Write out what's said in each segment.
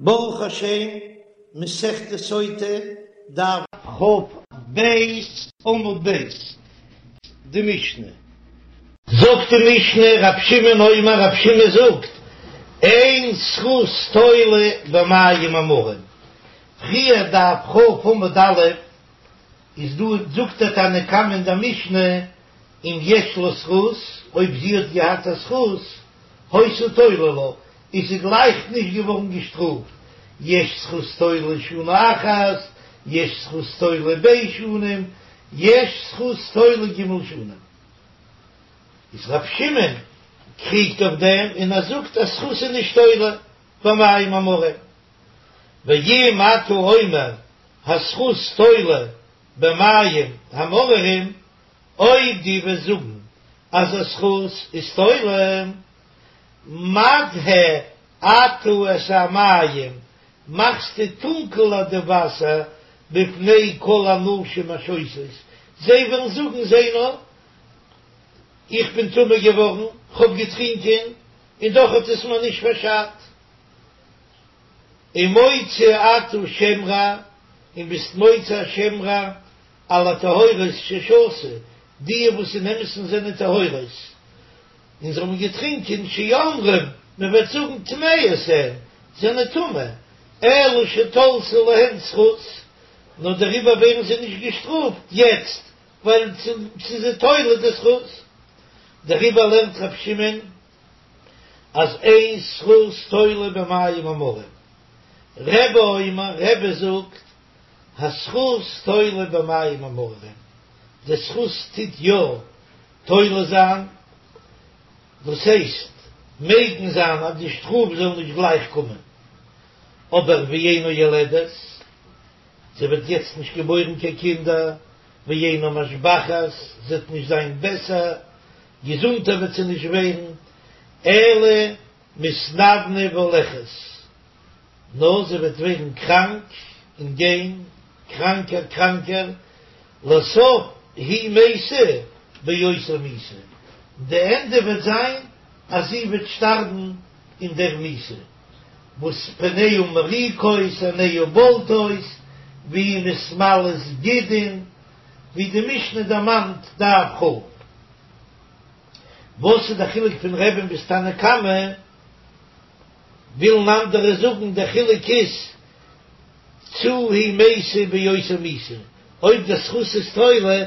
ברוך השם, מסכת סוטה, דף כ"ב עמוד ב', די משנה. זאגט די משנה, רב שמעון אומר, רב שמעון זאגט, אין זכות תולה במים המרים. פריער דף כ' עמוד א', איז דא זאגט דער תנא קמא אין דער משנה, אם יש לה זכות, אויב זי האט געהאט א זכות, היתה תולה לה, איז זי גלייך נישט געווארן געשטראפט, יש זכות תולה שנה אחת, יש זכות תולה ב' שנים, יש זכות תולה ג' שנים. איז ר' שמעון קריגט אויף דעם און ער זאגט אז זכות איז נישט תולה במים המרים. ואם אתה אומר הזכות תולה במים המאררים, אויב דו וועסט זאגן אז א זכות איז תולה, מדהה אתה את המים, מאכסטו טונקעלער די וואסער בפני כל הנשים השותות, זיי וועלן זאגן זע נאר, איך בין טמא געווארן, כ'האב געטרינקען, און דאך האט עס מיר נישט פארשאדט. ומוציא אתה שם רע, און ביסט מוציא א שם רע על הטהורות ששתו, די וואס אין אמת'ן זענען טהורות, און זיי האבן געטרינקען, שאומרים, מען וועט זאגן טמאות הן, זענען טמא, אלא שתלתה להן זכות, נאר דעריבער ווערן זיי נישט געשטראפט יעצט, ווייל ס'איז זיי תולה די זכות. דעריבער לערנט ר' שמעון אז אין זכות תולה במים המרים. רבי אומר, רבי זאגט, הזכות תולה במים המאררים, די זכות טוט יא תולה זיין, דאס הייסט מגין זיין אז די שטראף זאל נישט גלייך קומען, אבער ואינה יולדת, זי וועט יעצט נישט געבוירן קיין קינדער, ואינה משבחת, זי וועט נישט זיין בעסער, געזונטער וועט זי נישט ווערן, אלא מתנוונה והולכת. נאר זי וועט ווערן קראנק און גיין קראנקער קראנקער, לסוף היא מתה באותה מיתה, די ענדע וועט זיין אז זי וועט שטארבן אין דער מיתה, וואס פניה מוריקות עיניה בולטות והיא מתמלאת גידין, ווי די משנה דערמאנט דף כ'. וואס איז די חילוק פון רבי'ן ביז תנא קמא? ווילן אנדערע זאגן דער חילוק איז צו היא מתה באותה מיתה, אויב דער זכות איז תולה,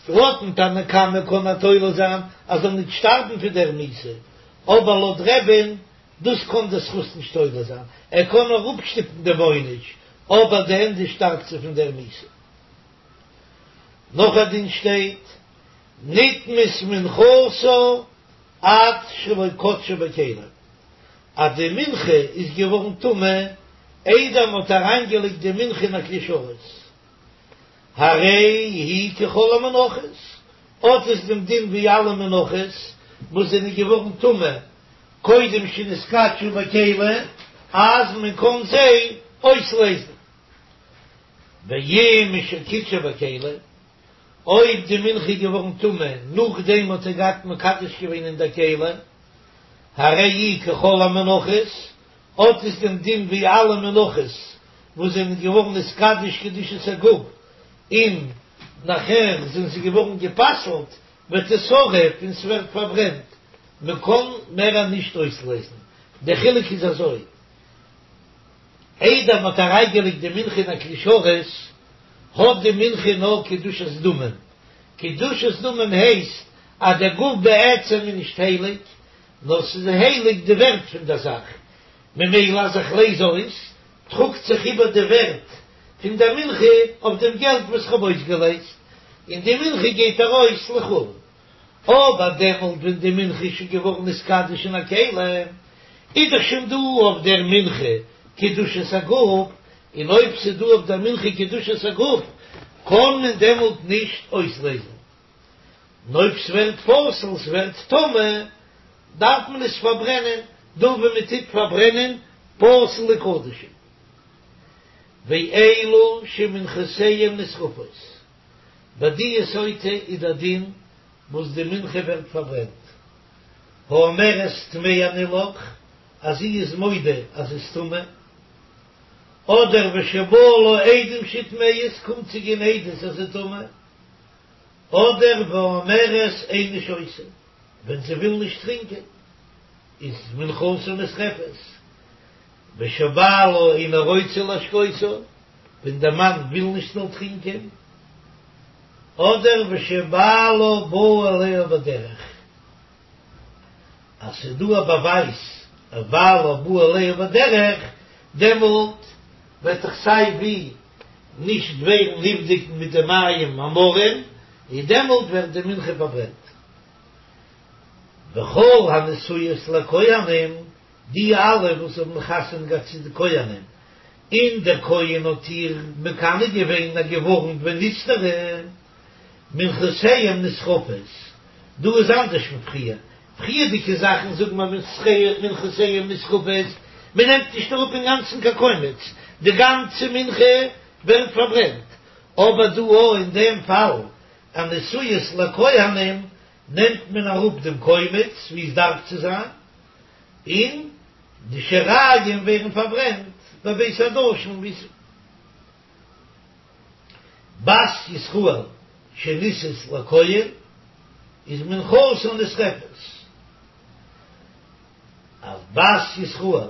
לויטן תנא קמא קען ער תולה זיין אז זאל נישט שטארבן פון דער מיתה, אבער לויט רבי'ן דאס קען דער זכות נישט תולה זיין, ער קען נאר אפשטופן דעם עונש, אבער די ענדע שטארבט זי פון דער מיתה. נאך א דין שטייט, נטמאת מנחתה עד שלא קדשה בכלי. אז די מנחה איז געווארן טמא איידער מען האט אריינגעלייגט די מנחה אין א כלי שרת, הרי היא ככל המנחות, האט עס דעם דין ווי אלע מנחות וואס זענען געווארן טמא קודם שנתקדשו בכלי, אז מען קען זיי אויסלעזן. ואם משקידשה בכלי, אויב די מנחה איז געווארן טמא נאכדעם האט ער געהאט מקדש געווען אין דער כלי, הרי היא ככל המנחות, האט עס דעם דין ווי אלע מנחות וואס זענען געווארן נתקדש קדושת הגוף און נאכער זענען זיי געווארן גע'פסל'ט, ותשרף און ס'ווערט פארברענט, מ'קען מער נישט אויסלעזן, דער חילוק איז אזוי. איידער מ'האט אריינגעלייגט די מנחה אין א כלי שרת, האט די מנחה נאר קדושת דמים. קדושת דמים הייסט אז דער גוף בעצם איז נישט הייליג, נאר ס'איז הייליג די ווערט פון דער זאך, ממילא אז איך לעז אויס, טראגט זיך איבער די ווערט פון דער מנחה אויף דעם געלט וואס כ'האב אויסגעלעזט, און די מנחה גייט ארויס לחולין. אבער דעמאלט ווען די מנחה איז שוין געווארן נתקדש אין א כלי, איז דאך שוין דא אויף דער מנחה קדושת הגוף, און אויב ס'איז דא אויף דער מנחה קדושת הגוף, קען מען דעמאלט נישט אויסלעזן. און אויב ס'ווערט פסול, ס'ווערט טמא, דארף מען עס פארברענען, דא ווי מ'טוט פארברענען פסול'ע קדשים. ואלו שמנחותיהם נשרפות. ביי די סוטה איז דער דין וואס די מנחה ווערט פארברענט. האומרת טמאה אני לך, אז זי איז מודה אז זי איז טמא. אדער ושבאו לה עדים שהיא טמאה, ס'קומט צו גיין עדות אז זי איז טמא, אדער ואומרת איני שותה, ווען זי וויל נישט טרינקען איז מנחתה נשרפת, ושבעלה אינו רוצה להשקותה, ווען דער מאן וויל נישט זאל טרינקען, אדער ושבעלה בא עליה בדרך, אז ס'איז דא א באווייז אז בעלה בא עליה בדרך, דעמאלט וועט דאך סיי ווי נישט ווערן נבדק מיט די מים המרים, און דעמאלט ווערט די מנחה פארברענט. וכל הנשואות לכהנים, די אלע וואס האבן חתונה געהאט צו די כהנים, און דער כהן האט איר מקנא געווען און געווארנט ונסתרה, מנחותיהם נשרפות, דא איז אנדערש פון פריער, פריערדיגע זאכן זאגן מיר מנחותיהם נשרפות, מען נעמט נישט אראפ אינגאנצן קיין קומץ, די גאנצע מנחה ווערט פארברענט, אבער דא אויך אין דעם פאל הנשואות לכהנים נעמט מען אראפ דעם קומץ ווי עס דארף צו זיין, און די שיריים ווערן פארברענט בבית הדשן ווי עס. בת ישראל שנישאת לכהן איז מנחתה נשרפת, אז בת ישראל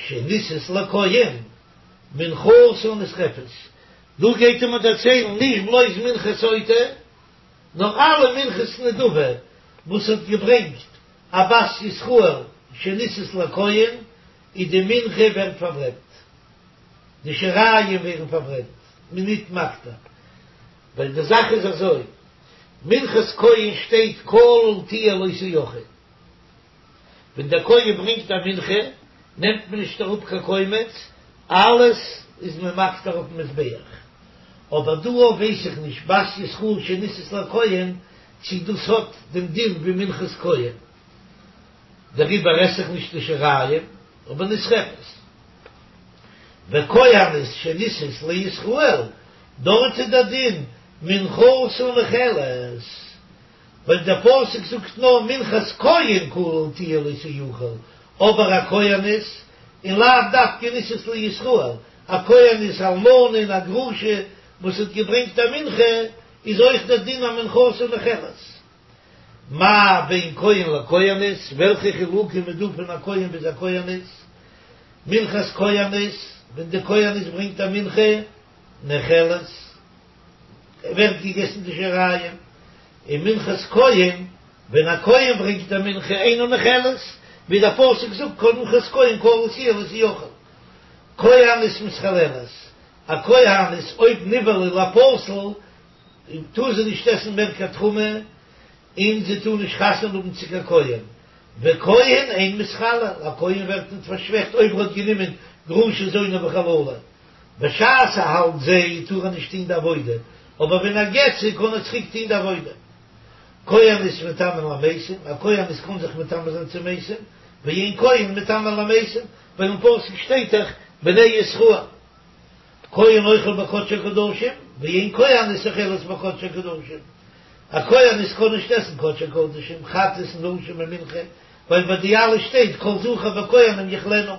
שנישאת לכהן מנחתה נשרפת, דא גייט ער מיר דערציילן נישט בלויז מנחת סוטה, נאר אלע מנחות נדבה וואס האט געברענגט א בת ישראל שנישאת לכהן, איז די מנחה ווערט פארברענט. די שיריים ווערן פארברענט, מען ניט מקטיר, ווייל די זאך איז אזוי, מנחת כהן שטייט כליל תהיה לא תאכל, ווען דער כהן ברענגט א מנחה נעמט מען נישט אראפ קיין קומץ, אלעס איז מען מקטיר אויפן מזבח, אבער דא אויף ווייס איך נישט בת ישראל שנישאת לכהן צי דאס האט דעם דין ווי מנחת כהן, דעריבער עס איך נישט די שיריים, אבער נשרפת. וכהנת שנישאת לישראל, דארט איז דער דין מנחתה נאכלת, ווייל דער פסוק זאגט נאר מנחת כהן כליל תהיה לא תאכל, אבער א כהנת, און לאו דווקא נישאת לישראל, א כהנת אלמנה און א גרושה וואס האט געברענגט א מנחה, איז אויך דער דין אז מנחתה נאכלת. מה בין כהן לכהנת, וועלכע חילוקים איז דא פון א כהן ביז א כהנת? מנחת כהנת, ווען די כהנת ברענגט א מנחה, נאכלת, ווערט געגעסן די שיריים, און מנחת כהן, ווען א כהן ברענגט א מנחה, אינה נאכלת, ווי דער פסוק זאגט כל מנחת כהן כליל תהיה לא תאכל. כהנת מתחללת, א כהנת אויב נבעלה לפסול, טאר זי נישט עסן מער קיין תרומה, און זי טאר נישט חתונה האבן צו קיין כהן, וכהן אין מתחלל, א כהן ווערט ניט פארשוועכט אויב ער האט גענומען גרושה זונה וחללה, בשעת ער האלט זי טאר ער נישט טון די עבודה, אבער ווען ער גט זי קען ער צוריק טון די עבודה. כהנת מטמאה למתים, א כהנת קען זיך מטמא זיין צו מתים, ואין כהן מטמא למתים, ווייל אין פסוק שטייט דאך בני ישראל. כהן אוכל בקדשי קדשים, ואין כהנת אוכלת בקדשי קדשים. א כהנת קען נישט עסן קדשי קדשים, חטאת און אשם און מנחה, ווייל ביי די אלע שטייט כל זכר בכהנים יאכלנה.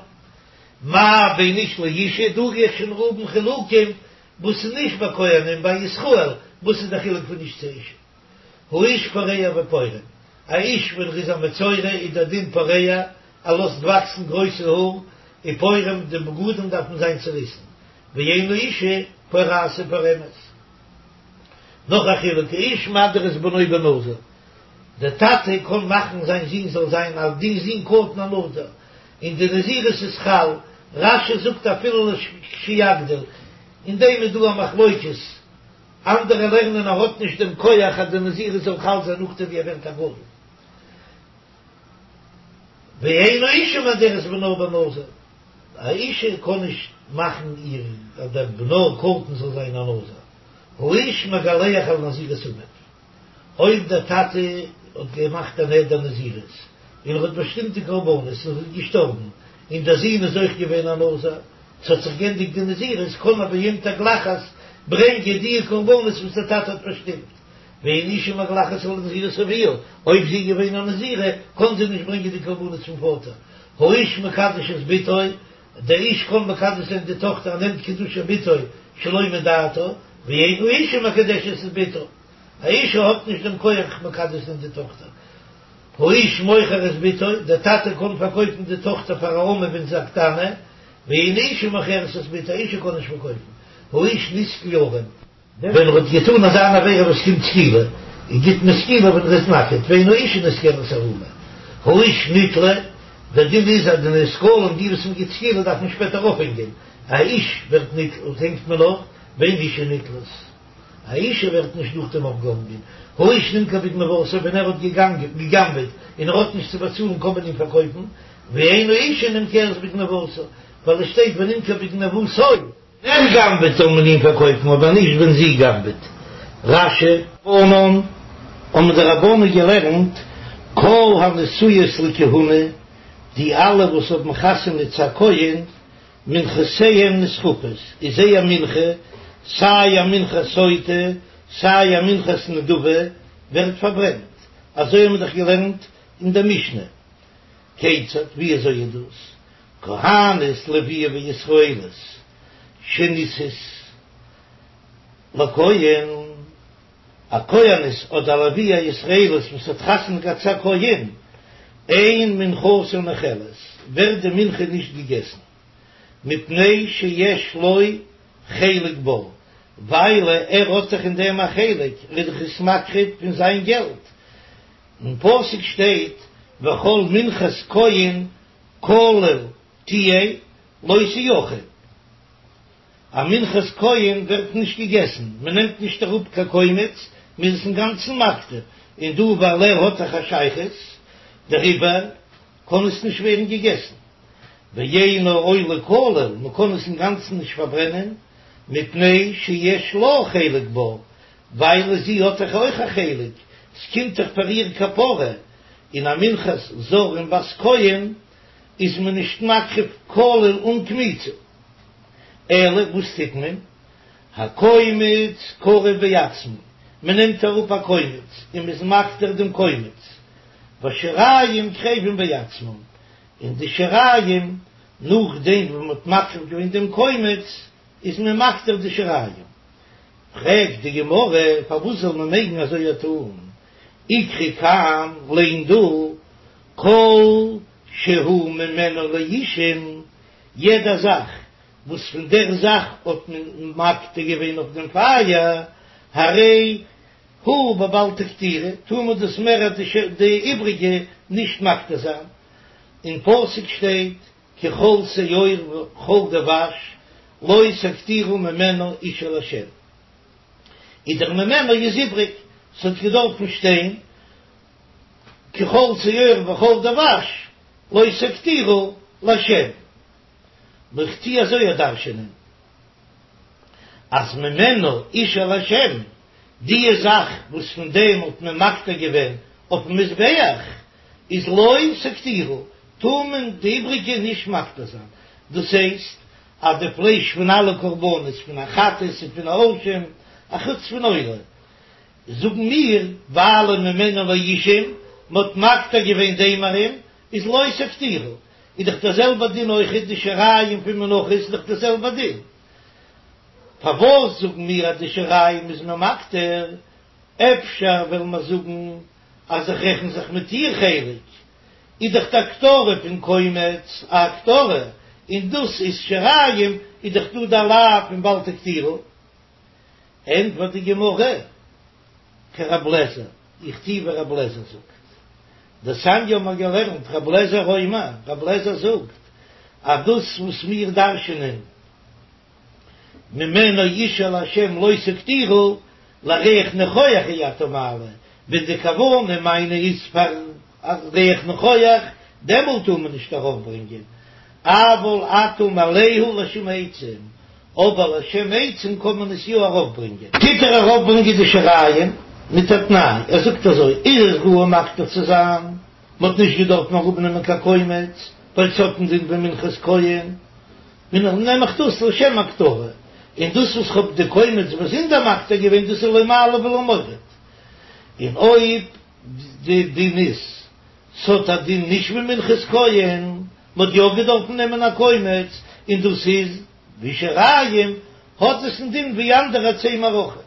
מה בין איש לאישה, דא גיי איך שוין האבן חילוקים וואס איז נישט ביי כהנים, ביי ישראל, וואס איז די חילוק פון איש צו אישה? האיש פורע ופורם, א איש ווען ער איז א מצורע איז דער דין פורע, ער לאזט וואקסן גרויסע האר, ופורם, די בגדים דארפן זיין צוריסן, ואין האישה פורעת ופורמת. נאך א חילוק, האיש מדיר את בנו בנזיר, דער טאטע קען מאכן זיין זון זאל זיין א די זון קטן א נזיר, און די נזירות איז חל, רש"י זאגט אפילו לכשיגדיל, אין דעם איז דא א מחלוקת, אנדערע לערנען ער האט נישט דעם כח אז די נזירות זאל חל זיין נאכדעם ווי ער ווערט א גדול. ואין האישה מדרת בנה בנזיר, א אישה קען נישט מאכן איר אז דער בנה קטן זאל זיין א נזיר, האיש מגלח על נזירות אביו, אויב דער טאטע האט געמאכט א נדר נזירות און ער האט באשטימט די קרבנות און איז געשטארבן און דער זון איז אויך געווען א נזיר, ס'האט זיך גענדיגט די נזירות, קען ער ביום תגלחת ברענגען די קרבנות וואס דער טאטע האט באשטימט. ואין אשה מגלחת על נזירות אביה, אויב זי איז געווען א נזירה, קען זי נישט ברענגען די קרבנות פון פאטער. האיש מקדש את בתו, דער איש קען מקדש זיין די טאכטער ער נעמט קידושי בתו שלא מדעתה, ואין האישה מקדשת את בתה, א אישה האט נישט דעם כח מקדש זיין די טאכטער. האיש מוכר את בתו, דער טאטע קען פארקויפן די טאכטער פאר א אמה ווען זי איז א קטנה, ואין האישה מוכרת את בתה, א אישה קען נישט פארקויפן. האיש נסקל ערום. ווען ער האט געטאן אזא אן עבירה וואס קומט סקילה, און גיט מען סקילה ווען ער איז נאקעט, ואין האישה נסקלת ערומה. האיש נתלה, דער דין איז אז די נסקלים, די וואס מען גיט סקילה דארף מען שפעטער אויפהענגען, א איש ווערט נתלה, הענגט מען אויף, ואין אישה נתלית. א אישה ווערט נישט נאכדעם אויפגעהאנגען. האיש נמכר בגניבתו, ווען ער האט געגנבעט און ער האט נישט צו באצאלן קען מען אים פארקויפן, ואין האישה נמכרת בגניבתה, ווייל עס שטייט ונמכר בגניבתו. ער גנב'עט זאל מען אים פארקויפן אבער נישט ווען זי גנב'עט. רש"י. רבנן, האבן די רבנן געלערנט, כל הנשואות לכהונה, די אלע וואס האבן חתונה צו א כהן, מנחותיהן נשרפות, איז זייער מנחה, סיי א מנחת סוטה, סיי א מנחת נדבה, ווערט פארברענט. אזוי האבן מיר דאך געלערנט אין דער משנה. כיצד, ווי אזוי איז דאס? כהנת לוויה וישראלית שנישאת לכהן, א כהנת אדער א לוויה ישראלית וואס האט חתונה געהאט צו א כהן, אין מנחתה נאכלת, ווערט די מנחה נישט געגעסן, מפני שיש לו חלק בה, ווייל ער האט דאך אין דעם א חלק, ער איז דאך עס מקריב פון זיין געלט, אין פסוק שטייט וכל מנחת כהן כליל תהיה לא תאכל. א מנחת כהן ווערט נישט געגעסן, מען נעמט נישט אראפ קיין קומץ, מען איז עס אינגאנצן מקטיר, און דא ווייל ער האט דאך א שייכות דעריבער קען עס נישט ווערן געגעסן. ואינה עולה כליל, מען קען עס אינגאנצן נישט פארברענען, מפני שיש לה חלק בה, ווייל זי האט דאך אויך א חלק, ס'קומט דאך פאר איר כפרה, און א מנחת זר און בת כהן איז מען נישט מקריב כליל אן קמיצה. אלא וואס טוט מען? הקומץ קרב בעצמו, מען נעמט אראפ א קומץ און מ'איז מקטיר דעם קומץ, והשיריים קרבים בעצמם, און די שיריים נאכדעם וואס מ'האט מקריב געווען דעם קומץ איז מען מקטיר די שיריים. פרעגט די גמרא, פארוואס זאל מען מעגן אזוי טון? איקרי כאן, ליין דא, כל שהוא ממנו לאישים, יעדע זאך וואס פון דער זאך האט מען מקטיר געווען אויף דעם פייער, הרי הוא בבל תקטירו, טאר מען דאס מער די איבריגע נישט מקטיר זיין. אין פסוק שטייט כי כל שאור וכל דבש לא תקטירו ממנו אשה לה'. איז דער ממנו איז איבריג, ס'האט געדארפן שטיין כי כל שאור וכל דבש לא תקטירו לה'. נאר איך טוה אזוי דרש'ענען אז ממנו אשה לה', די זאך וואס פון דעם האט מען מקטיר געווען אויפן מזבח איז לא תקטירו, טאר מען די איבריגע נישט מקטיר זיין, דאס הייסט אז די פלייש פון אלע קרבנות פון א חטאת און פון א אשם, אחוץ פון עולה, זאגן מיר, ווייל ממנו לאישים, מ'האט מקטיר געווען די אימורים, איז לא תקטירו, איז דאך דער זעלבער דין אויכעט די שיריים פון מנחות איז דאך דער זעלבער דין, פארוואס זאגן מיר אז די שיריים איז מען מקטיר, אפשר וועלן מיר זאגן אז איך רעכן זיך מיט איר חלק, איז דאך די הקטרה פון קומץ א הקטרה, און דאס איז שיריים, איז דאך דא די לאו פון בל תקטירו. ענטפערט די גמרא, כרב לעזער, איך טוה ווי רב לעזער זאגט. דתניא האבן מיר געלערנט, רב לעזער אומר, רב לעזער זאגט, אז דאס וואס מיר דרש'נען ממנו אשה לה' לא תקטירו, לריח ניחוח אי אתה מעלה, ווען די כוונה מיינע איז פאר א ריח ניחוח, דעמאלט טאר מען נישט ארויפברענגען, אבל אתה מעלהו לשם עצים, אבער לשם עצים קען מען עס יא ארויפברענגען. טוט ער ארויפברענגען די שיריים מיט א תנאי, ער זאגט אזוי, איז עס ראוי מקטיר צו זיין, מען האט נישט געדארפט אראפנעמען קיין קומץ, ווייל ס'האט דעם דין ווי מנחת כהן, און נעם איך דאס לשם הקטרה, און דאס וואס כ'האב די קומץ באזונדער מקטיר געווען דאס איז לא מעלה ולא מוריד, און אויב די דין איז ס'האט א דין נישט ווי מנחת כהן, מ'האט יא געדארפן נעמען א קומץ, און דאס איז ווי שיריים, האט עס א דין ווי אנדערע עצי מערכה,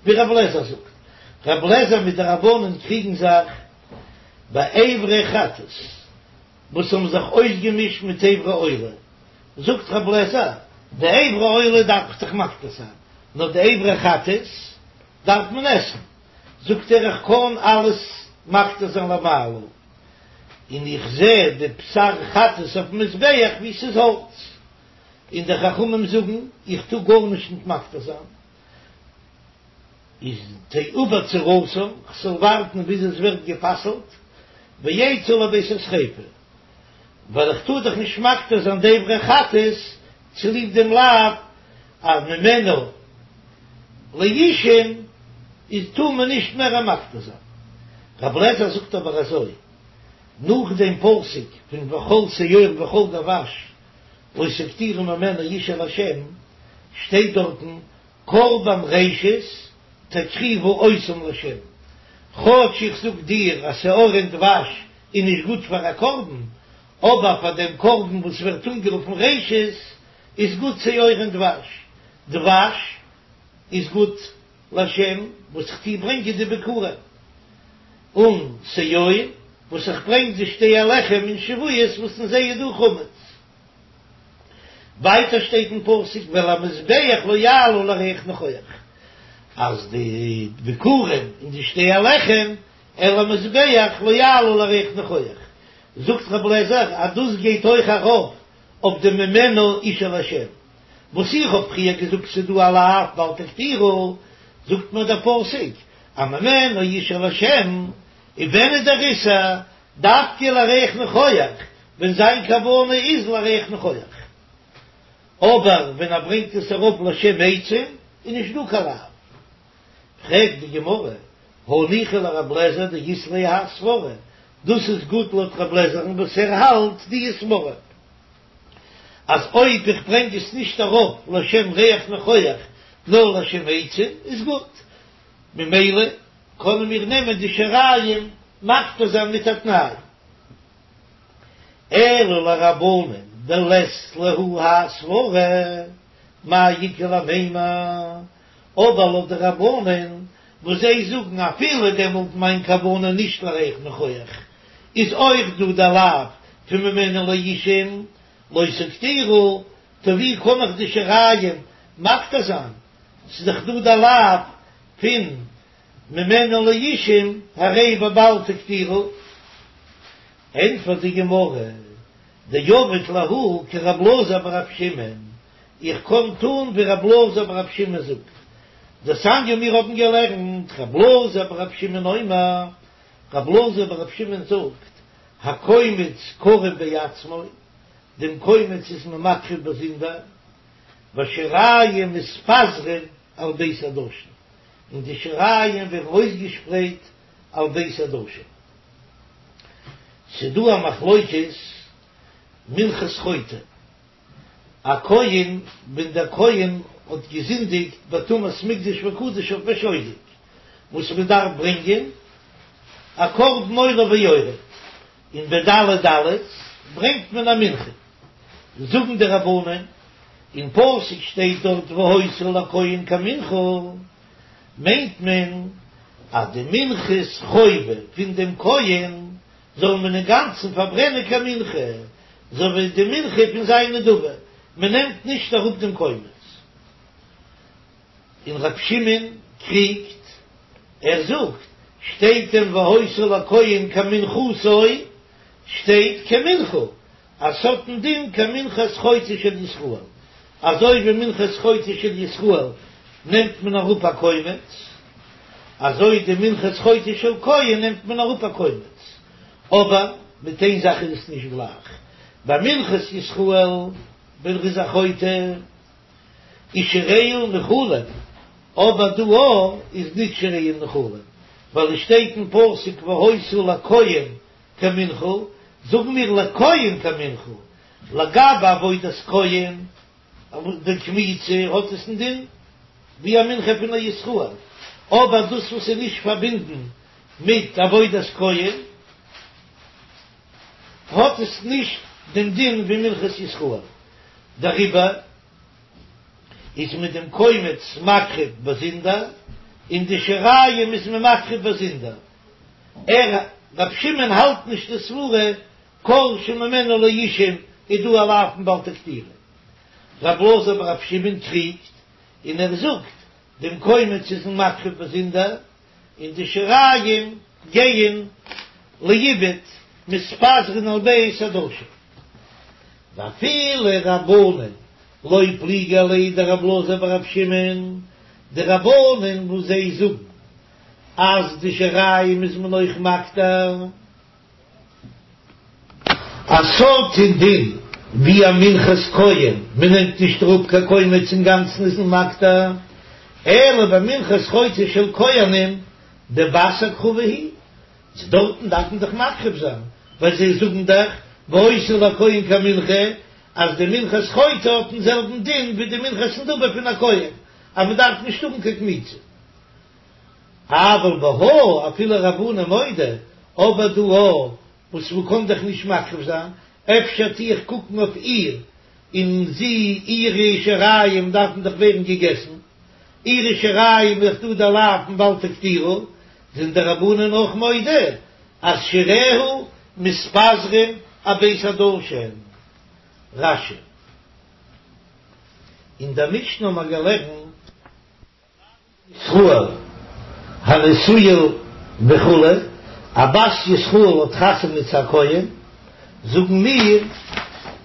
ווי רב לעזער זאגט. רב לעזער מיט די רבנן קריגן זיך ביי אברי חטאת וואס האבן זיך אויסגעמישט מיט אברי עולה, זאגט רב לעזער, די אברי עולה דארף איך דאך מקטיר זיין, נאר די אברי חטאת דארף מען עסן, זאגט ער איך קען אלעס מקטיר זיין למעלה, און איך זע די בשר חטאת אויפן מזבח ווי ס'איז האלץ, און די חכמים זאגן איך טאר גארנישט ניט מקטיר זיין, איז תעובר צורתן, כ'זאל ווארטן ביז עס ווערט גע'פסל'ט, ויצאו לבית השריפה, ווייל איך טאר דאך נישט מקטיר זיין די אברי חטאת צוליב דעם לאו אז ממנו לאישים איז טאר מען נישט מער מקטיר זיין. רב לעזער זאגט אבער אזוי, נאך דעם פסוק פון וכל שאור וכל דבש לא תקטירו ממנו אשה להשם, שטייט דארטן קרבן ראשית תקריבו אותם להשם, כאטש איך זאג דיר אז שאור און דבש איז נישט גוט פאר א קרבן, אבער פאר דעם קרבן וואס ווערט אנגערופן ראשית איז גוט שאור און דבש, דבש איז גוט לשם וואס איך טוה ברענגען די ביכורים, און שאור וואס איך ברענג די שתי הלחם אין שבועות וואס אין זיי איז דא חמץ. ווייטער שטייט אין פסוק ואל המזבח לא יעלו לריח ניחוח, אז די ביכורים און די שתי הלחם אל המזבח לא יעלו לריח ניחוח, זאגט רב לעזער אז דאס גייט אויך ארויף אויף די ממנו אשה להשם, וואס איך האב פריער געזאגט ס'דא א לאו בל תקטירו, זאגט מיר דער פסוק אז ממנו אשה להשם, און ווען איז דער איסור? דווקא לריח ניחוח, ווען זיין כוונה איז לריח ניחוח. אבער ווען ער ברענגט עס אראפ לשם עצים איז נישט דא קיין לאו. פרעגט די גמרא, הניחא לרב לעזער דאית ליה האי סברא, דאס איז גוט לויט רב לעזער'ן וואס ער האלט די סברא אז אויב איך ברענג עס נישט אראפ לשם ריח ניחוח נאר לשם עצים איז גוט, ממילא קענען מיר נעמען די שיריים מקטיר זיין מיט א תנאי. אלא לרבנן דלית להו האי סברא, מאי איכא למימר, אבער לויט די רבנן וואס זיי זאגן אפילו דעמאלט מיין כוונה נישט לריח ניחוח, איז אויך דא די לאו פון ממנו לאישים לא תקטירו, טא ווי קען איך די שיריים מקטיר זיין, ס'איז דאך דא די לאו פון ממנו לאישים הרי בבל תקטירו, ענטפערט די גמרא, דעביד להו כרב אלעזר ברב שמעון, איך קען טון ווי רב אלעזר ברב שמעון זאגט, דתניא מיר האבן געלערנט רב אלעזר ברב שמעון אומר, רב אלעזר ברב שמעון זאגט, הקומץ קרב בעצמו, דעם קומץ איז מען מקריב באזונדער, והשיריים מתפזרין על בית הדשן, און די שיריים ווערן אויסגעשפרייט על בית הדשן. ס'דא א מחלוקת מנחת חוטא, א כהן ווען דער כהן האט געזינדיגט בטומאת מקדש וקדשיו בשוגג, וואס מען דארף ברענגען א קרבן עולה ויורד, און בדלי דלות ברענגט מען א מנחה, זאגן די רבנן, אין פסוק שטייט דארט והיתה לכהן כמנחה, מיינט מען אז די מנחת חובה פון דעם כהן זאל מען אינגאנצן פארברענען כמנחה, אזוי ווי די מנחה פון זיין נדבה, מען נעמט נישט אראפ דעם קומץ. און ר' שמעון קריגט, ער זאגט, שטייט דען והיתה לכהן כמנחתו, שטייט כמנחה, אז ס'האט דעם דין כמנחת חוטא של ישראל, אזוי ווי מנחת חוטא של ישראל נעמט מען אראפ א קומץ, אזוי די מנחת חוטא של כהן נעמט מען אראפ א קומץ, אבער מיט איין זאך איז עס נישט גלייך, ביי מנחת ישראל ווען ער איז א חוטא איז שיריה נאכלין, אבער דא איז נישט שיריה נאכלין, ווייל עס שטייט אין פסוק והיתה לכהן כמנחה, זאגן מיר לכהן כמנחה, לגבי עבודת כהן, די קמיצה האט עס א דין ווי א מנחה פון א ישראל, אבער דאס וואס איז נישט פארבינדן מיט עבודת כהן האט עס נישט דעם דין ווי מנחת ישראל. דעריבער איז מען דעם קומץ מקריב באזונדער, און די שיריים איז מען מקריב באזונדער. ער, ר' שמעון האלט נישט די סברה כל שממנה לאישים איז דא א לאו פון בל תקטירו. ר' אלעזר בר' שמעון קריגט און ער זאגט דעם קומץ איז מען מקריב באזונדער, און די שיריים גייען לאיבוד מתפזרין על בית הדשן. ואפילו רבנן לא פליגי עליה דר' אלעזר בר' שמעון, די רבנן וואס זיי זאגן אז די שיריים איז מען אויך מקטיר. א סארט דין ווי א מנחת כהן, מען נעמט נישט אראפ קיין קומץ אינגאנצן איז מען מקטיר, אלא במנחת חוטא של כהנים דבת הקרבה היא, צו דארטן דארף מען דאך מקריב זיין, ווייל זיי זאגן דאך והיתה לכהן כמנחה, אז די מנחת חוטא האט דעם זעלבן דין ווי די מנחת נדבה פון א כהן, אז מען דארף נישט האבן קיין קמיצה. אבל בהא אפילו רבנן מודו, אבער דא א וואס מ'קען דאך נישט מקריב זיין, אפשר טו איך קוקן אויף איר, און זי, אירע שיריים דארפן דאך ווערן געגעסן, אירע שיריים איז דאך דא דער לאו פון בל תקטירו, זענען די רבנן אויך מודה אז שיריה מתפזרים אבית הדשן. רש"י. אין דער משנה האבן מיר געלערנט. ישראל הנשואה וכו', א בת ישראל האט חתונה צו א כהן, זאגן מיר,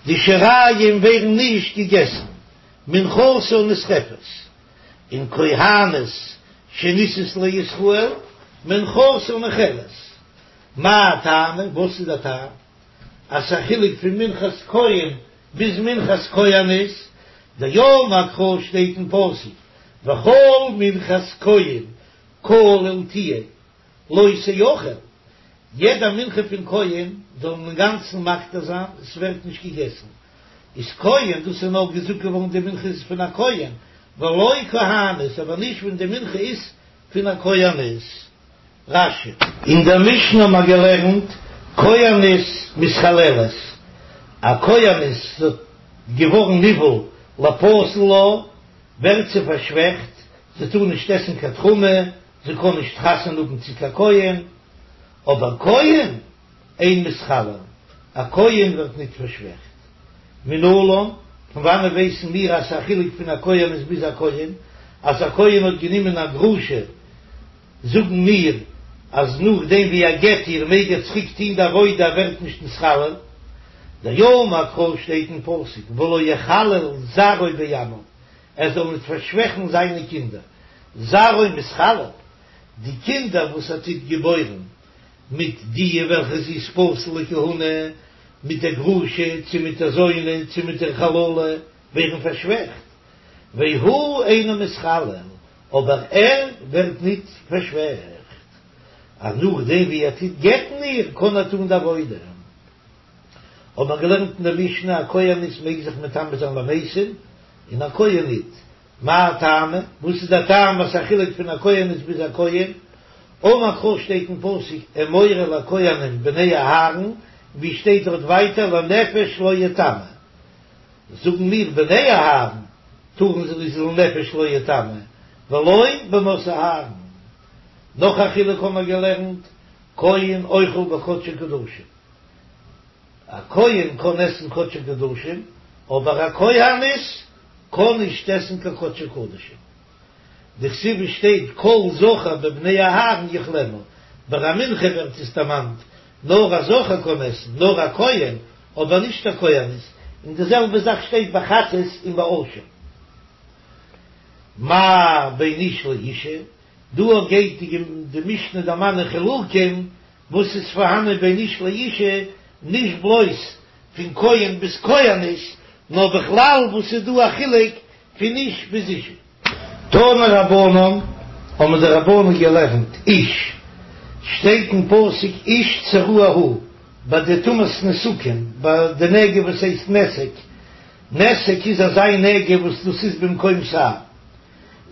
די שיריים ווערן נישט געגעסן, מנחתה נשרפת, און כהנת שנישאת לישראל, מנחתה נאכלת. מאי טעמא, וואס איז דער טעם אז ס'איז א חילוק פון מנחת כהן ביז מנחת כהנת? דאמר קרא שטייט אין פסוק וכל מנחת כהן כליל תהיה לא תאכל, יעדע מנחה פון כהן זאל מען אינגאנצן מקטיר זיין, עס ווערט נישט געגעסן, איז כהן, דאס איז נאר געזאגט געווארן די מנחה איז פון א כהן, ולא כהנת, אבער נישט ווען די מנחה איז פון א כהנת. רש"י. אין דער משנה האבן מיר געלערנט כהנת מתחללת, א כהנת איז געווארן נבעל לפסול לה, ווערט זי פארשוועכט, זי טאר נישט עסן קיין תרומה, זי קען נישט חתונה האבן צו קיין כהן, אבער כהן אין מתחלל, א כהן ווערט ניט פארשוועכט. מנלן, פון וואנעט ווייסן מיר אז ס'איז א חילוק פון א כהנת ביז א כהן, אז א כהן האט גענומען א גרושה, זאגן מיר אז נאכדעם ווי ער גט איר מעג ער צוריק טוהן די עבודה ער ווערט נישט נתחלל, דאמר קרא שטייט אין פסוק ולא יחלל זרעו בעמיו ער זאל ניט פארשוועכן זיינע קינדער, זרעו מתחלל, די קינדער וואס ער טוט געבוירן מיט די וועלכע זי איז פסול לכהונה, מיט דער גרושה צו מיט דער זונה צו מיט דער חללה ווערן פארשוועכט, והוא אינו מתחלל, אבער ער ווערט ניט פארשוועכט, אז נאכדעם ווי ער טוט גט'ן איר, קען ער טאן די עבודה. האט מען געלערנט אין דער משנה, א כהנת מעג זיך מטמא זיין למתים, און א כהן ניט. מאי טעמא? וואס איז דער טעם וואס א חילוק פון א כהנת ביז א כהן? אמר קרא שטייט אין פסוק אמור אל הכהנים בני אהרן, ווי שטייט דארט ווייטער לנפש לא יטמא. זאגן מיר בני אהרן טארן זיי איז לנפש לא יטמא ולא בנות אהרן. נאך א חילוק האבן מיר געלערנט, כהן אוכל בקדשי קדשים, א כהן קען עסן קדשי קדשים, אבער א כהנת קען נישט עסן קיין קדשי קדשים. דכתיב עס שטייט כל זכר בבני אהרן יאכלנה, ביי א מנחה ווערט עס דערמאנט נאר א זכר קען עסן, נאר א כהן, אבער נישט א כהנת, און די זעלבע זאך שטייט ביי חטאת און ביי אשם. מה בין איש לאישה, דא גייט די משנה דערמאנען חילוקים וואס איז פארהאנען בין איש לאישה, נישט בלויז פון כהן ביז כהנת, נאר בכלל וואס איז דא א חילוק פון איש ביז אישה. תנו רבנן, האבן די רבנן געלערנט, איש, שטייט אין פסוק איש צרוע הוא, ביי די טומאת נתקים, ביי די נגע וואס הייסט נתק, נתק איז אזא נגע וואס דאס איז במקום שער,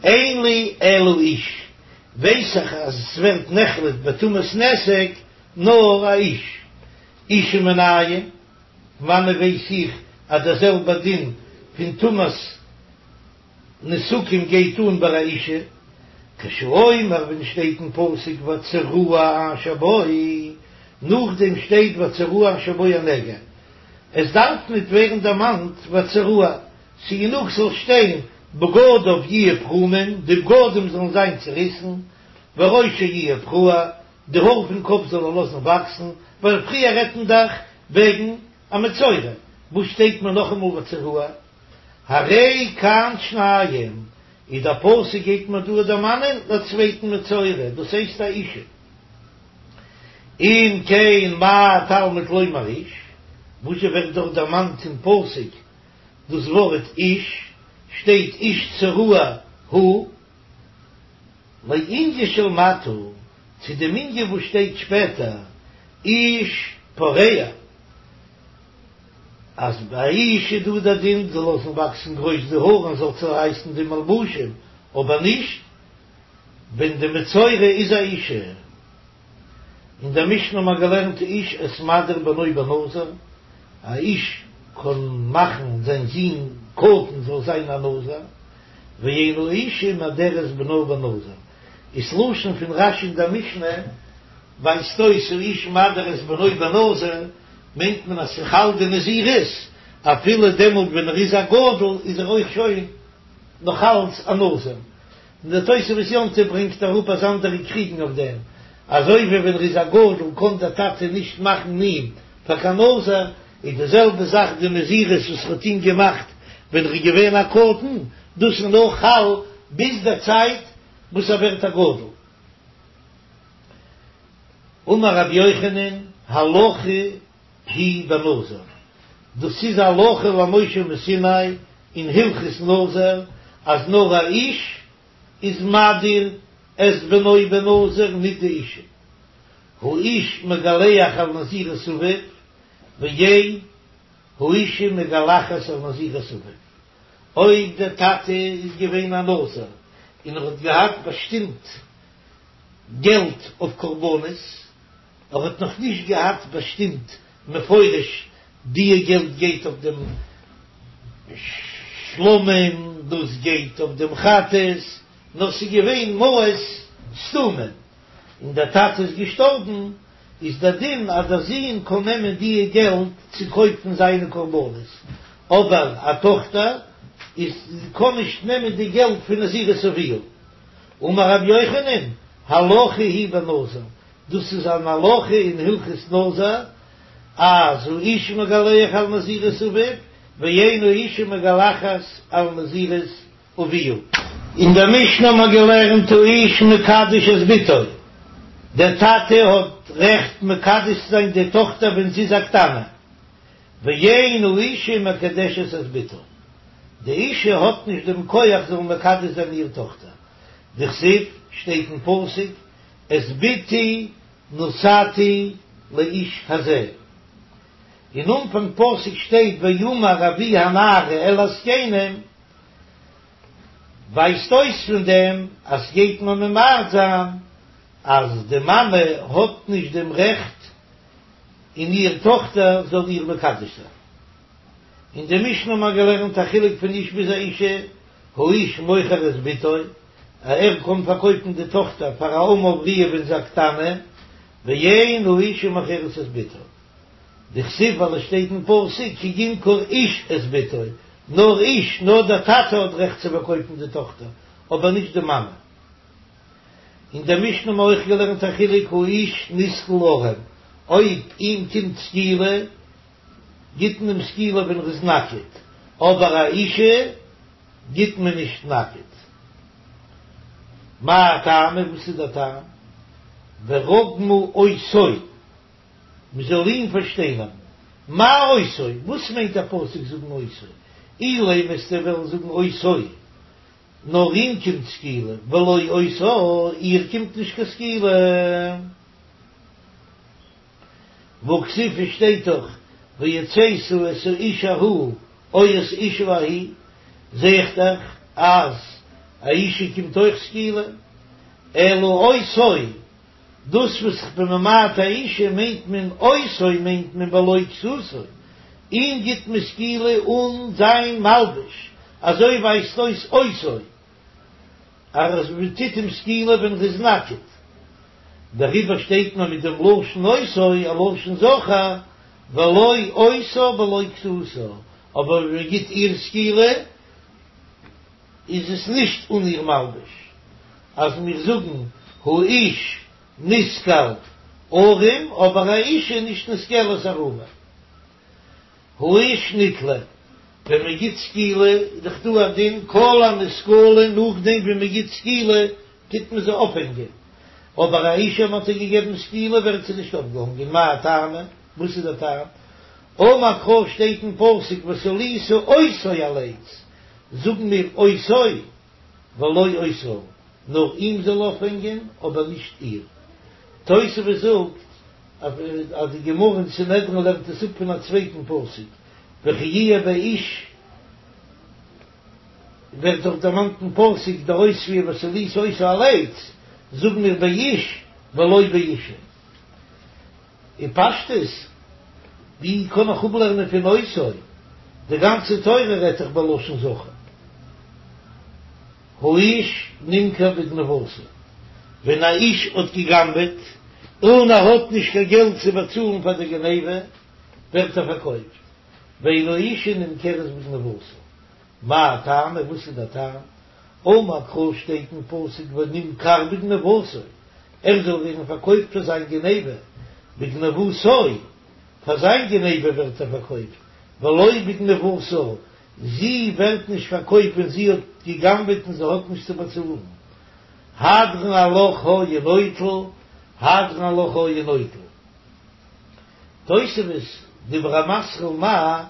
אין לי אלא איש, ווייס איך אז עס ווערט נחלט בטומאת נתק נאר א איש, אישה מנין, פון וואנען ווייס איך אז דער זעלבער דין. פון טומאת נתקים גייט אן ביי א אישה, כשהוא אומר ווען שטייט אין פסוק והצרוע אשר בו, נאכדעם שטייט והצרוע אשר בו הנגע, עס דארף ניט ווערן דערמאנט והצרוע, ס'גענוג ס'זאל שטיין בגדיו יהיו פרומים, די בגדים זאלן זיין צעריסן, וראשו יהיה פרוע, די האר פון קאפ זאל ער לאזן וואקסן, ווייל פריער רעדט מען דאך וועגן א מצורע, וואס שטייט מיר נאכאמאל והצרוע? הרי כאן שניים, איז דער פסוק גייט מיר דא דערמאנען דער צווייטן מצורע, דאס הייסט א אישה. אם כן מה תלמוד לומר איש, וואס זשע ווערט דארט דערמאנט אין פסוק דאס ווארט איש, שטייט איש צרוע הוא, לענין של מטה, צו דעם ענין וואס שטייט שפעטער איש פורע. אז ביי א איש איז דא דער דין זאל לאזן וואקסן גרויס די האר און זאל צערייסן די מלבושים, אבער נישט ווען די מצורע איז א אישה. אין דער משנה האט מען געלערנט האיש את מדיר בנו בנזיר, א איש קען מאכן זיין זון קטן זאל זיין א נזיר, ואין האישה מדרת בנה בנזיר, איז לשון פון רש"י אין דער משנה ווייזט אויס האיש מדיר את בנו בנזיר, מיינט מען אז ס'חל די נזירות אפילו דעמאלט ווען ער איז א גדול איז ער אויך שוין נאך אלץ א נזיר, און דער תוספות יום טוב ברענגט אראפ אז אנדערע קריגן אויף דעם, אזוי ווי ווען ער איז א גדול קען דער טאטע נישט מאכן אים פאר קיין נזיר, איז די זעלבע זאך די נזירות וואס ער האט אים געמאכט ווען ער איז געווען א קטן, דאס איז נאר חל ביז דער צייט וואס ער ווערט א גדול. אמר רבי יוחנן, הלכה היא בנזיר, דאס איז הלכה למשה מסיני אין הלכות נזיר, אז נאר א איש איז מדיר את בנו בנזיר ניט די אישה, האיש מגלח על נזירות אביו, ואין האישה מגלחת על נזירות אביו, אויב דער טאטע איז געווען א נזיר און ער האט געהאט באשטימט געלט אויף קרבנות, ער האט נאך נישט געהאט באשטימט מפורש דיע געלט גייט אויף דעם שלמים, דאס גייט אויף דעם חטאת, נאר ס'איז געווען מעות סתומים, און דער טאטע איז געשטארבן, איז דער דין אז דער זון קען נעמען דיע געלט צו קויפן זיינע קרבנות, אבער א טאכטער איז קען נישט נעמען די געלט פון נזירות אביה. אמר רבי יוחנן, הלכה היא בנזיר, דאס איז אן הלכה אין הלכות נזיר, אז האיש מגלח על נזירות אביו, ואין האישה מגלחת על נזירות אביה. אין דער משנה האט מען געלערנט האיש מקדש את בתו, דער טאטע האט רעכט מקדש צו זיין די טאכטער ווען זי איז א קטנה, ואין האישה מקדשת את בתה, די אישה האט נישט דעם כח זאל מקדש זיין איר טאכטער, דכתיב, שטייט אין פסוק, את בתי נתתי לאיש הזה, אין אנפאנג פסוק שטייט ויאמר אבי הנערה אל הזקנים, ווייזט אויס פון דעם אז גייט מען ממעט זיין אז די מאמע האט נישט דעם רעכט אין איר טאכטער זאל איר מקדש זיין. אין די משנה האט מען געלערנט א חילוק פון איש ביז א אישה, האיש מוכר את בתו, א ער קען פארקויפן די טאכטער פאר א אמה עבריה ווען זי איז א קטנה, ואין האישה מוכרת את בתה. דכתיב ווייל עס שטייט אין פסוק כי ימכור איש את בתו, נאר איש, נאר דער טאטע האט רעכט צו פארקויפן די טאכטער, אבער נישט די מאמע. אין דער משנה האבן מיר אויך געלערנט א חילוק האיש נסקל ערום, אויב אים קומט סקילה גיט מען אים סקילה ווען ער איז נאקעט, אבער א אישה גיט מען נישט נאקעט. מאי טעמא, וואס איז דער טעם? ורגמו אותו, מען זאל אים פארשטיינערן. מאי אותו, וואס מיינט דער פסוק זאגן אותו? אילימא וועסטו וועלן זאגן אותו. נאר אים קומט סקילה, ולא אותה, איר קומט נישט קיין סקילה. והכתיב שטייט דאך והוצאת את האיש ההוא או את האשה ההיא, זע איך דאך אז א אישה קומט אויך סקילה, אלא אותו, דאס וואס איך בין ממעט א אישה מיינט מען אותו מיינט מען בלא כסותו. אים גיט מען סקילה אן זיין מלבוש, אזוי ווייזט אויס אותו אז מען טוט אים סקילה ווען ער איז נאקעט, דעריבער שטייט מען מיט דעם לשון אותו א לשון זכר, ולא אותה בלא כסותה, אבער ווען מען גיט איר סקילה איז עס נישט אן איר מלבוש, אז מיר זאגן האיש נסקל ערום אבער א אישה איז נישט נסקלת ערומה. האיש נתלה, ווען מען גיט סקילה איז דאך דא א דין כל הנסקלין נאכדעם ווי מען גיט סקילה טוט מען זיי אויפהענגען, אבער א אישה מען האט איר געגעבן סקילה ווערט זי נישט אויפגעהאנגען, מאי טעמא? וואס איז דער טעם? אמר קרא שטייט אין פסוק ותלית אותו על עץ, זאגן מיר אותו ולא אותה, נאר אים זאל אויפהענגען אבער נישט איר. תוספות זאגט אז די גמרא אין סנהדרין לערנט עס אפ פון א צווייטן פסוק, וכי יהיה באיש, ווערט דאך דערמאנט אין פסוק דער אויספיר ותלית אותו על עץ, זאגן מיר באיש ולא באישה. אין פשטות, ווי קען איך אפלערנען פון אותו? די גאנצע תורה רעדט דאך בלשון זכר. האיש נמכר בגניבתו, ווען א איש האט גע'גנב'עט און ער האט נישט קיין געלט צו באצאלן פאר די גניבה, ווערט ער פארקויפט, ואין האישה נמכרת בגניבתה, מאי טעמא, וואס איז דער טעם? אמר קרא שטייט אין פסוק ונמכר בגניבתו, ער זאל ווערן פארקויפט פאר זיין גניבה, בגניבתו, פאר זיין גניבה ווערט ער פארקויפט, ולא בגניבתה, זי ווערט נישט פארקויפט ווען זי האט גע'גנב'עט און זי האט נישט צו באצאלן. הדרן עלך היה נוטל, הדרן עלך היה נוטל. תוספות, דיבור המתחיל מאי,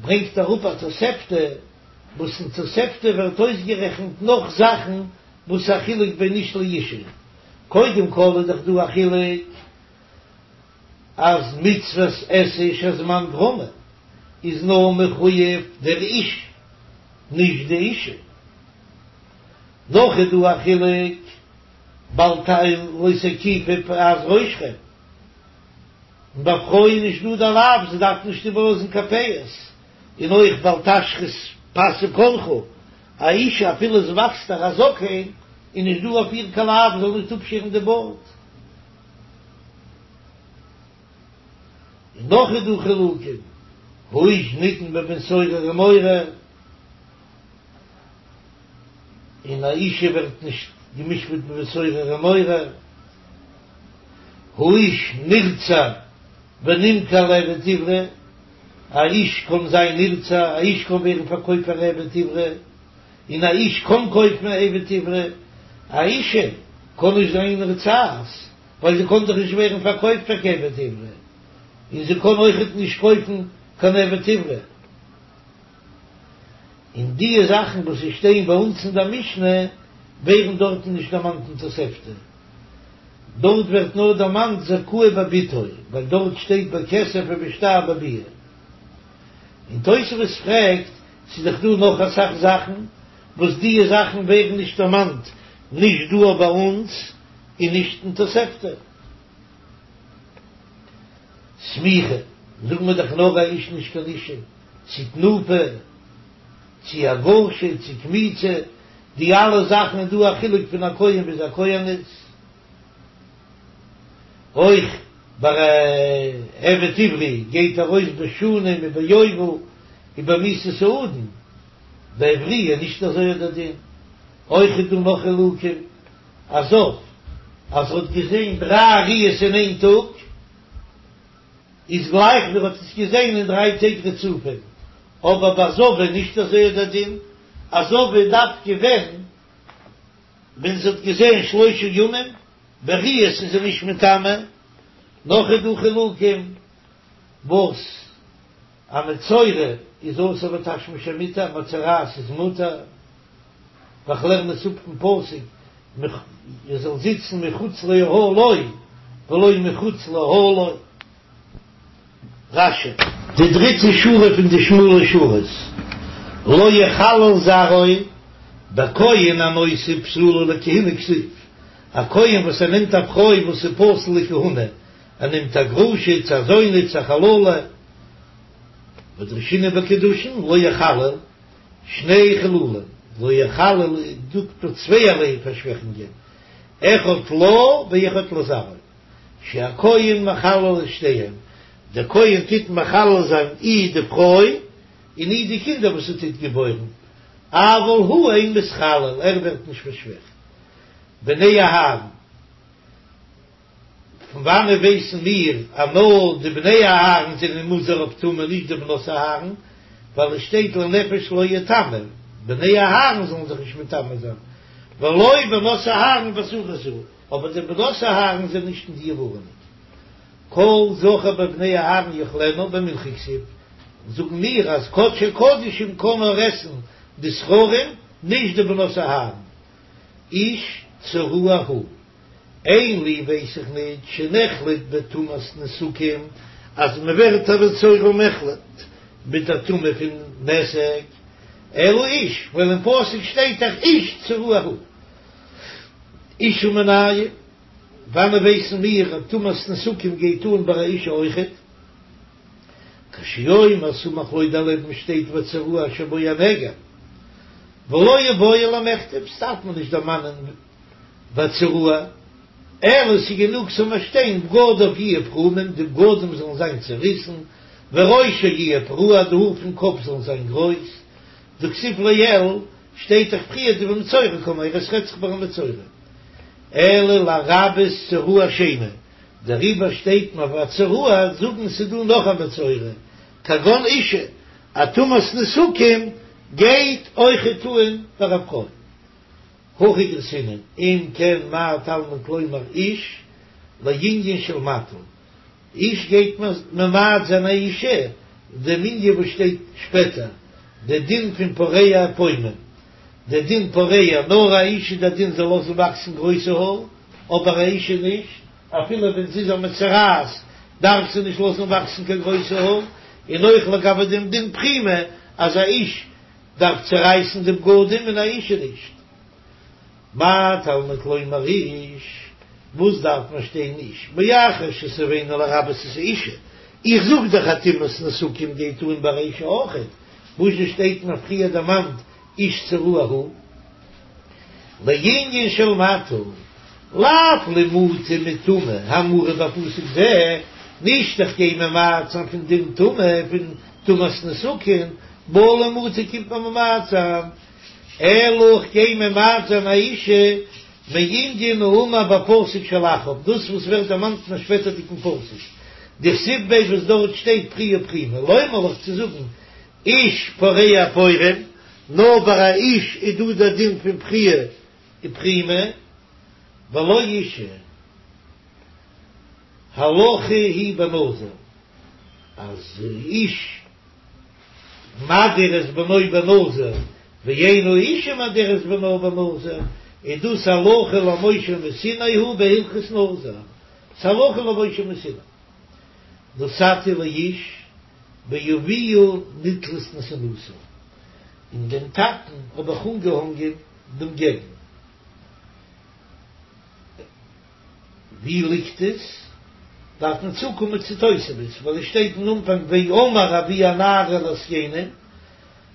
ברענגט אראפ א תוספתא, וואס אין תוספתא ווערט אויסגערעכנט נאך זאכן וואס א חילוק בין איש לאישה. קודם כל איז דאך דא א חילוק אז מצוות עשה שהזמן גרמא איז נאר מחויב דער איש נישט די אישה. נאך איז דא א חילוק בל ת לא תקיפו פאת ראשכם, און ביי פרויען איז נישט דא די לאו זיי דארפן נישט איבערלאזן קיין פאות, און אויך בל תשחית פאת זקנך, א אישה אפילו עס וואקסט איר א זקן איז נישט דא אויף איר קיין לאו זאל נישט אפשערן די בארד. און נאך איז דא חילוקים, האיש נידון בבן סורר ומורה, און א אישה ווערט נישט גע'משפט בבן סורר ומורה, האיש נרצע ונמכר לעבד עברי, א איש קען זיין נרצע, א איש קען ווערן פארקויפט פאר עבד עברי, און א איש קען קויפן א עבד עברי, א אישה קען נישט זיין נרצעת, ווייל זי קען דאך נישט ווערן פארקויפט פאר קיין עבד עברי, און זי קען אויכעט נישט קויפן קיין עבד עברי. און דיע זאכן וואס עס שטייען ביי אונז אין דער משנה ווערן דארטן נישט דערמאנט אין תוספתא, דארט ווערט נאר דערמאנט זכאי בבתו, ווייל דארט שטייט בכסף ובשטר בביאה. און תוספות פרעגט, ס'איז דאך דא נאך אסאך זאכן וואס דיע זאכן ווערן נישט דערמאנט נישט דא ביי אונז און נישט אין תוספתא. סמיכה, זאגן מיר דאך נאר א איש נישט קיין אישה, צו תנופה, צו הגשה, צו קמיצה, די אלע זאכן איז דא א חילוק פון א כהן ביז א כהנת. אויך ביי א עבד עברי גייט ארויס בשנים וביובל ובמיתת האדון, ביי עבריה איז נישט אזוי דער דין. אויך איז דא נאך חילוקים, א זב אז ער האט געזען דריי ראיות אין איין טאג, איז גלייך ווי ער האט עס געזען אין דריי טעג רצופים, אבער ביי זבה נישט אזוי דער דין, א זבה דווקא ווען ווען זי האט געזען שלושה ימים, בראיות איז זי נישט מטמא, נאך איז דא חילוקים וואס א מצורע איז אסור בתשמיש המיטה, א מצורעת איז מותר, ווייל כ'לערן עס אפ פון פסוק ער זאל זיצן מחוץ לאהלו ולא מחוץ לאהלה. רש"י. די דריטע שורה פון די שמאלע שורות, לא יחלל זרעו, בכהן הנושא בתולה לכהונה כתיב, א כהן וואס ער נעמט א פרוי וואס איז פסול לכהונה, ער נעמט א גרושה צו א זונה צו א חללה. ודרשינן בקידושין לא יחלל, שני חילולים, לא יחלל זאגט מען צווייערליי פארשוועכונגען, אחד לה ואחד לזרעו, שהכהן מחלל את שתיהם, דער כהן טוט מחלל זיין אי די פרוי און אי די קינדער וואס ער טוט געבוירן, אבל הוא אין מתחלל, ער ווערט נישט פארשוועכט. בני אהרן. פון וואנעט ווייסן מיר אז נאר די בני אהרן זענען מוזהר אויף טומאה נישט די בנות אהרן, ווייל עס שטייט לנפש לא יטמא, בני אהרן זאלן זיך נישט מטמא זיין, ולא בנות אהרן באזהרה זו, אבער די בנות אהרן זענען נישט אין די ווארענונג. כל זכר בבני אהרן יאכלנה במנחה כתיב, זאגן מיר אז קדשי קדשים קען נאר עסן די זכרים נישט די בנות אהרן, איש צרוע הוא. אין לי ווייס איך ניט שנחלט בטומאת נתקים אז מען ווערט א מצורע מוחלט מיט א טומאה פון נתק, אלא איש, ווייל אין פסוק שטייט דאך איש צרוע הוא. אשה מנין, וואנען ווייסן מיר אז טומאת נתקים גייט אן ביי א אישה אויכעט? כשהוא אומר סמוך לו דערלעבן שטייט והצרוע אשר בו הנגע ולא איבעי למיכתב, ס'דארף מען נישט דערמאנען והצרוע, אלא ס'איז גענוג ס'זאל נאר שטיין בגדיו יהיו פרומים, די בגדים זאלן זיין צעריסן, וראשו יהיה פרוע, די האר פון קאפ זאלן זיין גרויס, דכתיב לעיל, שטייט דאך פריער דבמצורע קאמר, עס רעדט זיך ביי א מצורע. אלא לרבות צרוע שני, דעריבער שטייט מיר והצרוע, זאגן ס'איז דא נאך א מצורע, כגון אישה, א טומאת נתקים גייט אויכעט אן פאר א פרוי. הכי גרסינן, אם כן מה תלמוד לומר איש לענין של מטה, איש גייט ממעט זיין א אישה, דעם ענין וואס שטייט שפעטער, די דין פון פורע ופורם, די דין פורע, נאר א איש איז די דין זאל לאזן וואקסן גרויסע האר, אבער א אישה נישט, אפילו ווען זי איז א מצורעת דארף זי נישט לאזן וואקסן קיין גרויסע האר, און אויך לגבי דעם דין פרימה אז א איש דארף צערייסן די בגדים און א אישה נישט. מה תלמוד לומר איש, וואס דארף מען שטיין איש, מאחר שציוונו לרבות את האישה, איך זאג דאך אז טומאת נתקים גייט אן ביי א אישה אויכעט, וואס זשע שטייט מיר פריער דערמאנט איש צרוע הוא? לענין של מטה, לאו למעוטי מטומאה האמורה בפסוק זה, נישט איך גיי ממעט זיין פון דין טומאה פון טומאת נתקים, בא למעוטי קומט מען ממעט זיין, אלא איך גיי ממעט זיין א אישה מענין האמור בפסוק שלאחריו, דאס וואס ווערט דערמאנט אין א שפעטערדיגן פסוק, דכתיב ביה וואס דארט שטייט פריעה ופרימה, לומר לך צו זאגן איש פורע ופורם, נאר ביי א איש איז דא דער דין פון פריעה ופרימה, ולא אישה. הלכה היא בנזיר, אז איש מדיר את בנו בנזיר, ואין האישה מדירה את בנה בנזיר, איז דאס הלכה למשה מסיני הוא בהלכות נזיר, ס'הלכה למשה מסיני. נתתי לאיש באביה נתלית נתינתה, אין דעם טאטן האב איך אנגעהאנגען דעם געבן. ווי ליגט עס? דארף מען צוקומען צו תוספות, ווייל עס שטייט אין אנפאנג ואמר אבי הנערה אל הזקנים,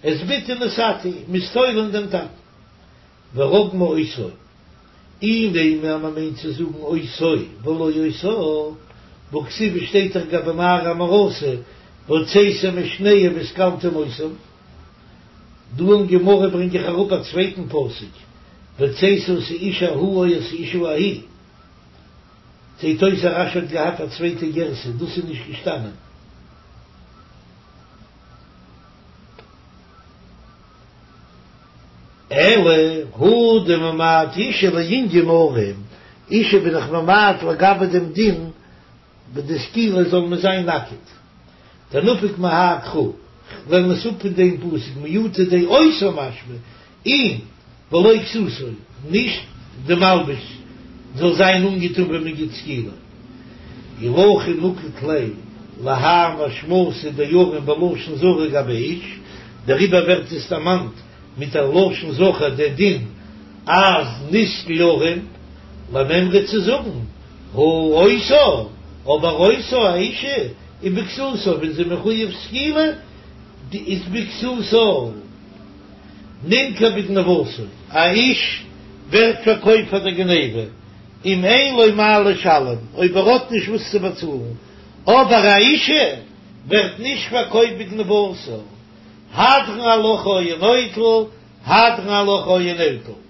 את בתי נתתי, מ'איז תולה אין דעם טאטן. ורגמו אותו, אי נימא אז מ'מיינט צו זאגן אותו ולא אותה, והכתיב עס שטייט דאך גבי נערה המאורסה, והוצאתם את שניהם וסקלתם אותם. דא אין גמרא ברענג איך אראפ א צווייטן פסוק, והוצאת את האיש ההוא או את האשה ההיא. זעט אויס אז רש"י האט געהאט א צווייטע גירסא, דאס איז נישט געשטאנען. אלא הא דממעט אישה לענין ערום, אישה בין איך ממעט לגבי דעם דין ביי די סקילה זאל מען זיין נאקעט. דנפיק מהאי קרא, כ'לערן עס אפ פון דעם פסוק מיעוטא דאותה משמע אים ולא כסותו, נישט די מלבוש זאל זיין אנגעטון ווען מען גיט סקילה. אי הכי נקט ליה להאי משמעותא דערום בלשון זכר גבי איש, דעריבער ווערט עס דערמאנט מיט א לשון זכר דער דין אז נסקל ערום למימרא צו זאגן הא אותה, אבער אותה א אישה איז בכסותה ווען זי מחויב סקילה. איז בכסותה נמכר בגניבתו, א איש ווערט פארקויפט פאר דער גניבה, אם אין לו מה לשלם, אויב ער האט נישט וואס צו באצאלן, אבער א אישה ווערט נישט פארקויפט בגניבתה, הדרן עלך היה נוטל, הדרן עלך היה נוטל.